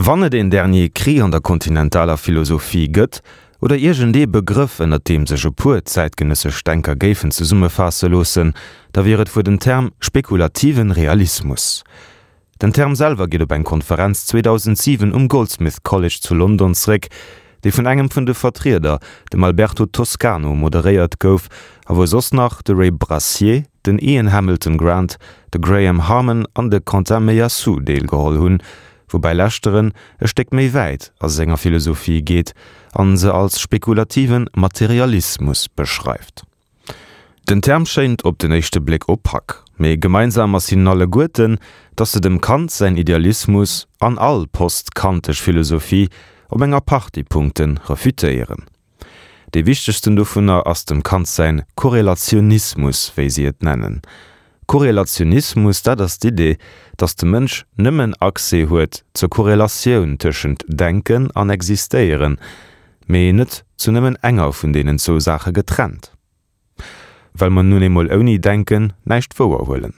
Wann et een Dernier Cri an der kontinentaler Philosophie gëtt, oder iergendee Begrëff, ënnert deem sech e puer zäitgenëssesch Denker géifen zesummefaasse loossen, da wier et wuer den Term spekulativen Realismus. Den Term selwer geet op eng Konferenz 2007 um Goldsmith College zu London zeréck, déi vun engem vun de Vertrieder, dem Alberto Toscano, moderéiert gouf a wou soss nach de Ray Brassier, den Ian Hamilton Grant, de Graham Harman an de Quentin Meillassoux deelgeholl hunn, woubäi leschteren e Stéck méi wäit a senger Philosophie geet an se als spekulativen Materialismus beschreift. Den Term schéint op den éischte Bléck opak, mee gemeinsam ass hinnen alleguerten, datt se dem Kant säin Idealismus an all post-kantesch Philosophie op enger Partie Punkte refutéieren. Dee wichtegsten dovunner ass dem Kant säin Korrelationismus, wéi si et nennen. Korrelationismus, dat ass d'Idee, datt de Mënsch nëmmen Accès huet zur Korrelatioun tëschent Denken an Existéieren, mee net zu nëmmen enger vun deenen zwou Saache getrennt. Well mer nun eemol ouni Denken näischt wouer huelen.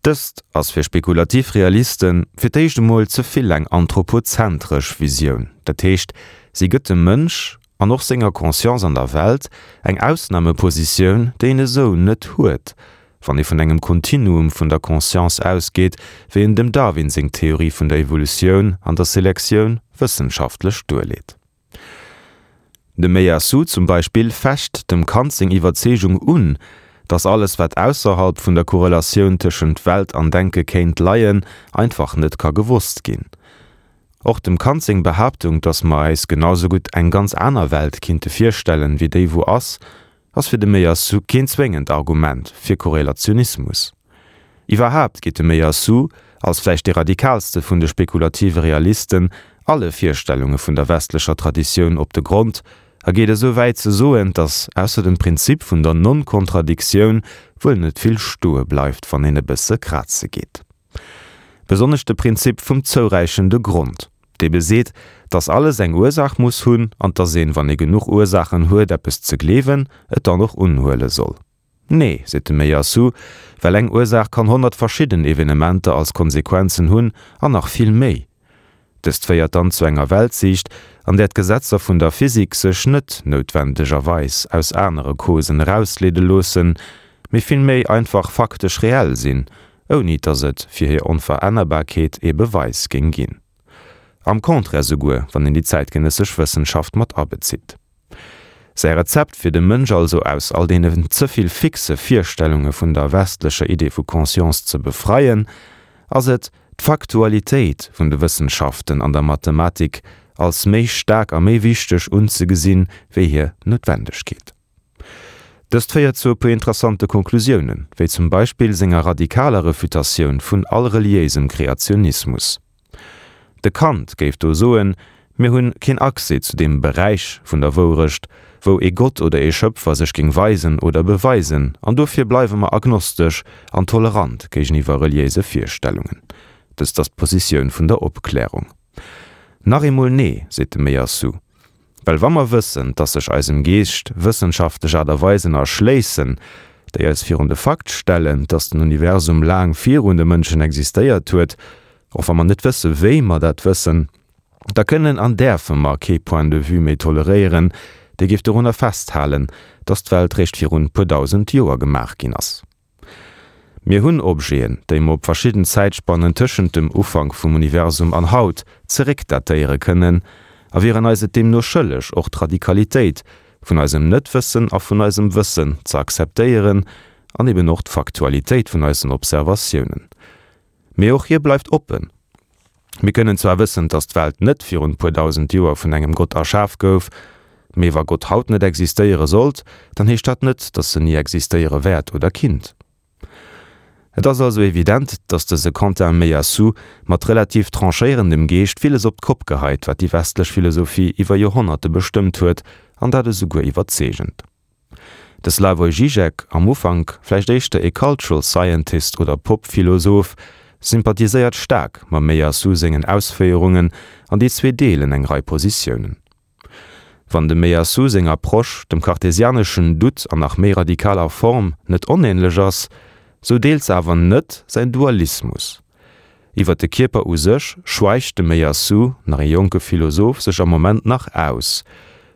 Dëst ass fir spekulativ Realiste fir d'éischt emol ze vill eng anthropozentresch Visioun, dat heescht, si gëtt dem Mënsch, an och senger Conscience an der Welt, eng Ausnamepositioun, déi en esou net huet, wann ee vun engem Kontinuum vun der Conscience ausgeet, wéi en dem Darwin seng Theorie vun der Evolutioun an der Selektioun wëssenschaftlech duerleet. De Meillassoux zum Beispill fecht dem Kant seng Iwwerzeegung un, datt alles wat ausserhalb vun der Korrelatioun tëschent Welt an Denke kéint leien, einfach net ka gewosst ginn. Och dem Kant seng Behaaptung, datt mer äis genau sou gutt eng ganz aner Welt kinnte virstellen, wéi déi wou ass, ass fir de Meillassoux keen zwéngend Argument fir Korrelationismus. Iwwerhaapt geet de Meillassoux, als vläicht dee radikaalste vun de spekulative Realisten, alle Virstellunge vun der westlecher Traditioun op de Grond a geet esou wäit ze soen, datt ausser dem Prinzip vun der Non-Kontradiktioun wuel net vill stoe bleift, wann een e bësse kraze geet. Besonnesch de Prinzip vum zouräichende Grond, dee beseet, dass alles eng Ursaach muss hunn an dass een, wann ee genuch Ursaachen huet eppes ze gleewen, et dann och unhuele soll. Nee, seet de Meillassoux, well eng Ursaach kann 100 verschidden Evenementer als Konsequenzen hunn an nach vill méi. Dëst féiert dann zu enger Weltsiicht, an där d'Gesetzer vun der Physik sech net noutwendegerweis aus anere Causen erausleede loossen, mee villméi einfach faktesch reell sinn, ouni dass et fir hir Onverännerbarkeet ee Beweis géing ginn. Am Contraire souguer, wann een déi zäitgenëssesch Wëssenschaft mat abezitt. Säi Rezept fir de Mënsch also aus all deenen ze vill fixe Virstellunge vun der westlecher Idee vu Conscience ze befreien, ass et, d'Faktualitéit vun de Wëssenschaften an der Mathematik als méi staark a méi wichteg unzegesinn, wéi hir Noutwendegkeet. Dëst féiert zu e puer interessante Konklusiounen, wéi zum Beispill senger radikaler Refutatioun vun all reliéisem Kreationismus. De Kant géif do soen, mir hunn keen Accès zu deem Beräich vun der Wourecht, wou ee Gott oder ee Schëpfer sech géing weisen oder beweisen, an dofir bleiwe mer agnostesch an tolerant géigeniwwer reliéise Virstellungen. Dëst ass d'Positioun vun der Opklärung. Nach eemol nee, seet de Meillassoux. Well wa mer wëssen, dass sech eisem Geescht wëssenschaftlech Aart a Weisen erschléissen, déi eis virun de Fakt stellen, dass den Universum laang virun de Mënschen existéiert huet, och wa mer net wësse wéi mer dat wëssen, da kënnen an däerfe mer kee Point de vue méi toleréieren, dee géif dorunner festhalen, dass d'Welt réischt virun puer dausend Joer gemaach ginn ass. Mir hunn Objeten, déi mer op verschidden Zäitspannen tëschent dem Ufank vum Universum an haut zeréckdatéiere kënnen, a wieren eis et deemno schëlleg, och d'Radikalitéit vun eisem Net-Wëssen a vun eisem Wëssen ze akzeptéieren an eben och d'Faktualitéit vun eisen Observatiounen. Mee och hie bleift oppen. Mir kënnen zwar wëssen, dass d'Welt net virun puer dausend Joer vun engem Gott erschaf gouf, mee wa Gott haut net existéiere sollt, dann heescht dat net, dass en ni existéiere wäert oder kinnt. Et ass also evident, dass dëse Quentin Meillassoux mat relativ tranchéierendem Geescht villes op d'Kopp geheit, wat déi westlech Philosophie iwwer Joerhonnerte bestëmmt huet, an dat esouguer iwwerzeegend. De Slavoj Žižek, am Ufank vläicht éischter ee Cultural Scientist oder Pop-Philosoph, sympathiséiert staark mam Meillassoux sengen Ausféierungen an déi zwee deelen eng Rei Positiounen. Wann dem Meillassoux seng Approche dem kartesianeschen Doute an nach méi radikaler Form net onähnlech ass, sou deelt se awer net säin Dualismus. Iwwer de Kierper u sech schweigt de Meillassoux, nach ee jonke Philosoph, sech am Moment nach aus,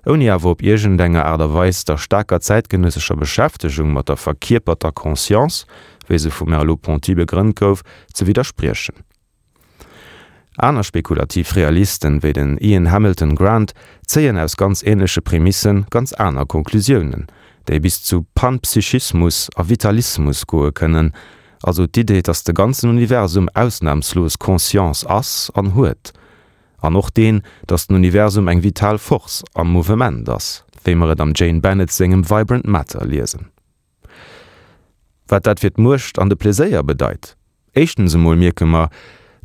ouni awer op iergendenger Aart a Weis der staarker zäitgenëssescher Beschäftegung mat der verkierperter Conscience, wéi se vum Merleau-Ponty begrënnt gouf, ze widderspriechen. Aner spekulativ Realisten, wéi den Ian Hamilton Grant, zéien aus ganz änleche Prämisse ganz aner Konklusiounen, déi bis zu Panpsychismus a Vitalismus goe kënnen, also d'Idee, datt de ganzen Universum ausnamslos Conscience ass an huet, an och deen, datt den Universum eng vital Force am Mouvement ass, wéi mer et am Jane Bennett sengem Vibrant Matter liesen. Wat dat fir d'Muecht an de Pleséier bedeit? Éischtens emol mierke mer,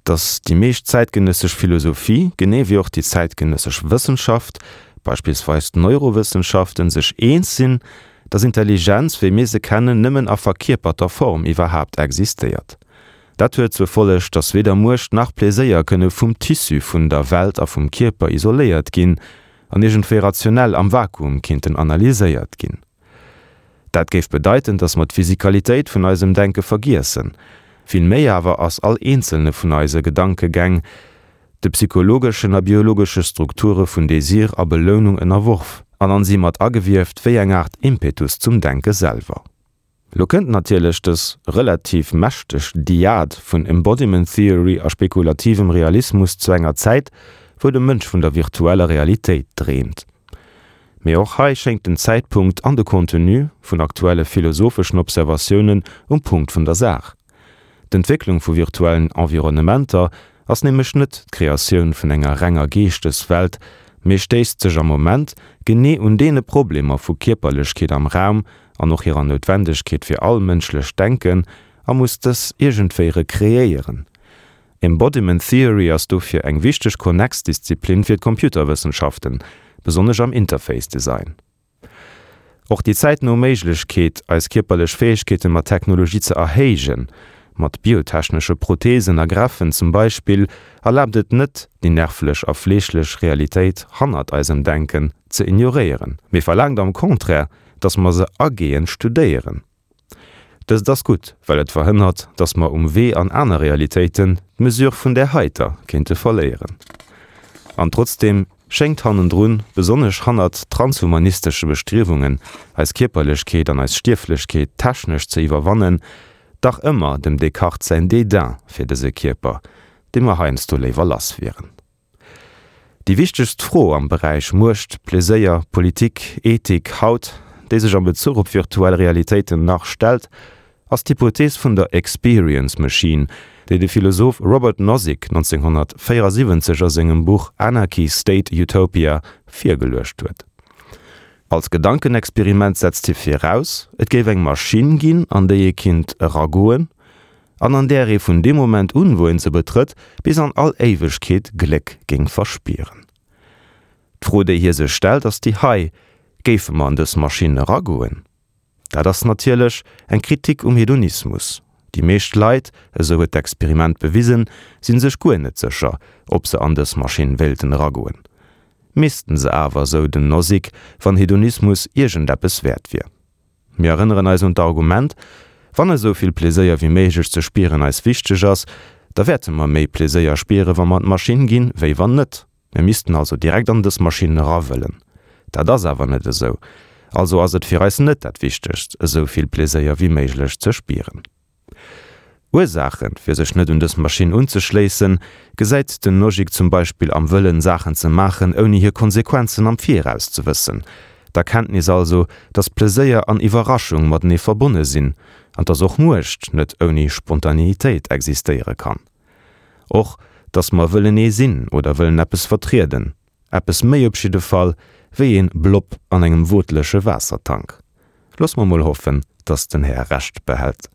datt déi meescht zäitgenëssesch Philosophie, genee wéi och déi zäitgenëssesch Wëssenschaft, beispillsweis d'Neurowëssenschaften, sech eens sinn, datt Intelligenz, wéi mir se kennen, nëmmen a verkierperter Form iwwerhaapt existéiert. Dat huet zur Folleg, datt weder Muecht nach Pleséier kënne vum Tissu vun der Welt a vum Kierper isoléiert ginn an iergendwéi rationell am Vakuum kinnten analyséiert ginn. Dat géif bedeiten, datt mer d'Physikalitéit vun eisem Denke vergiessen. Vill méi awer ass all eenzelne vun eise Gedankegäng de psychologeschen a biologesche Strukture vun Désir a Belounung ënnerworf an an si mat agewieft wéi eng Aart Impetus zum Denke selwer. Lo kënnt natierlech dës relativ mächteg Dyad vun Embodiment Theory a spekulativem Realismus zu enger Zäit, wou de Mënsch vun der virtueller Realitéit dreemt. Mee och hei schéngt den Zäitpunkt an de Contenu vun aktuelle philosopheschen Observatiounen um Punkt vun der Saach. D'Entwécklung vu virtuellen Environnementer ass nämlech net d'Kreatioun vun enger renger Geeschteswelt, mee stéisst sech am Moment genee un deene Problemer vu Kierperlechkeet am Raum an och hirer Noutwendegkeet fir all mënschlecht Denken a muss dës iergendwéi rekreéieren. Embodiment Theory ass dofir eng wichteg Konnex-Disziplin fir d'Computerwëssenschaften, besonnesch am Interface Design. Och déi zäitno Méiglechkeet, eis kierperlech Fäegkeete mat Technologie ze erhéijen, mat biotechnesche Protheesen a Greffen zum Beispill, erlaabt et net, déi nervlech a fleeschlech Realitéit hannert eisem Denken ze ignoréieren, mee verlaangt am Contraire, dass mer se agehend studéieren. Dëst ass gutt, well et verhënnert, dass mer um Wee an aner Realitéiten d'Mesure vun där heiter kéinte verléieren. An trotzdeem schéngt hannendrun, besonnesch hannert transhumanistesche Bestriewungen, eis Kierperlechkeet an eis Stierflechkeet technesch ze iwwerwannen, dach ëmmer dem Descartes säin Dédain fir dëse Kierper, dee mer heiansdo léiwer lass wieren. Déi wichtegst Fro am Beräich Muecht, Pleséier, Politik, Ethik haut, déi sech am Bezuch op virtuell Realitéiten nach stellt, ass d'Hypothees vun der Experience Machine, déi de Philosoph Robert Nozick 1974 a sengem Buch Anarchy State Utopia virgeluecht huet. Als Gedankenexperiment setzt hie viraus, et géif eng Maschinn ginn, an déi ee kinnt eragoen, an an där ee vun deem Moment un, wou een se betrëtt, bis an all Éiwegkeet Gléck géing verspieren. D'Fro, déi hie sech stellt, ass déi hei, Géife mer an dës Maschinn eragoen? Dat ass natierlech eng Kritik um Hedonismus. Déi meescht Leit, esou huet d'Experiment bewisen, si sech guer net sécher, ob se an dës Maschinn wéilten eragoen. Missten se awer, esou den Nozick, wann Hedonismus iergendeppes wäert wier. Mir erënneren eis un d'Argument, Wann esou vill Pleséier wéi méiglech ze spieren eis wichteg ass, da wäerte mer méi Pleséier spieren, wa mer an d'Maschinn ginn, wéi wann net. Mir missten also direkt an dës Maschinn era wëllen. Dat ass awer net esou. Also ass et fir eis net dat Wichtegst, esou vill Pleséier wéi méiglech ze spieren. Ursaachen, fir sech net un dës Maschinn unzeschléissen, gesäit den Nozick zum Beispill am Wëllen, Saachen ze maachen, ouni hir Konsequenzen am Viraus ze wëssen. D'Erkenntnis also, dass Pleséier an Iwwerraschung matenee verbonne sinn, an dass och Muecht net ouni Spontaneitéit existéiere kann. Och, dass mer wëllen ee sinn oder wëllen eppes vertrieden. Eppes méi op jidde Fall wéi een Blob an engem wootleche Waassertank. Loosse mer mol hoffen, dass den Här Recht behält.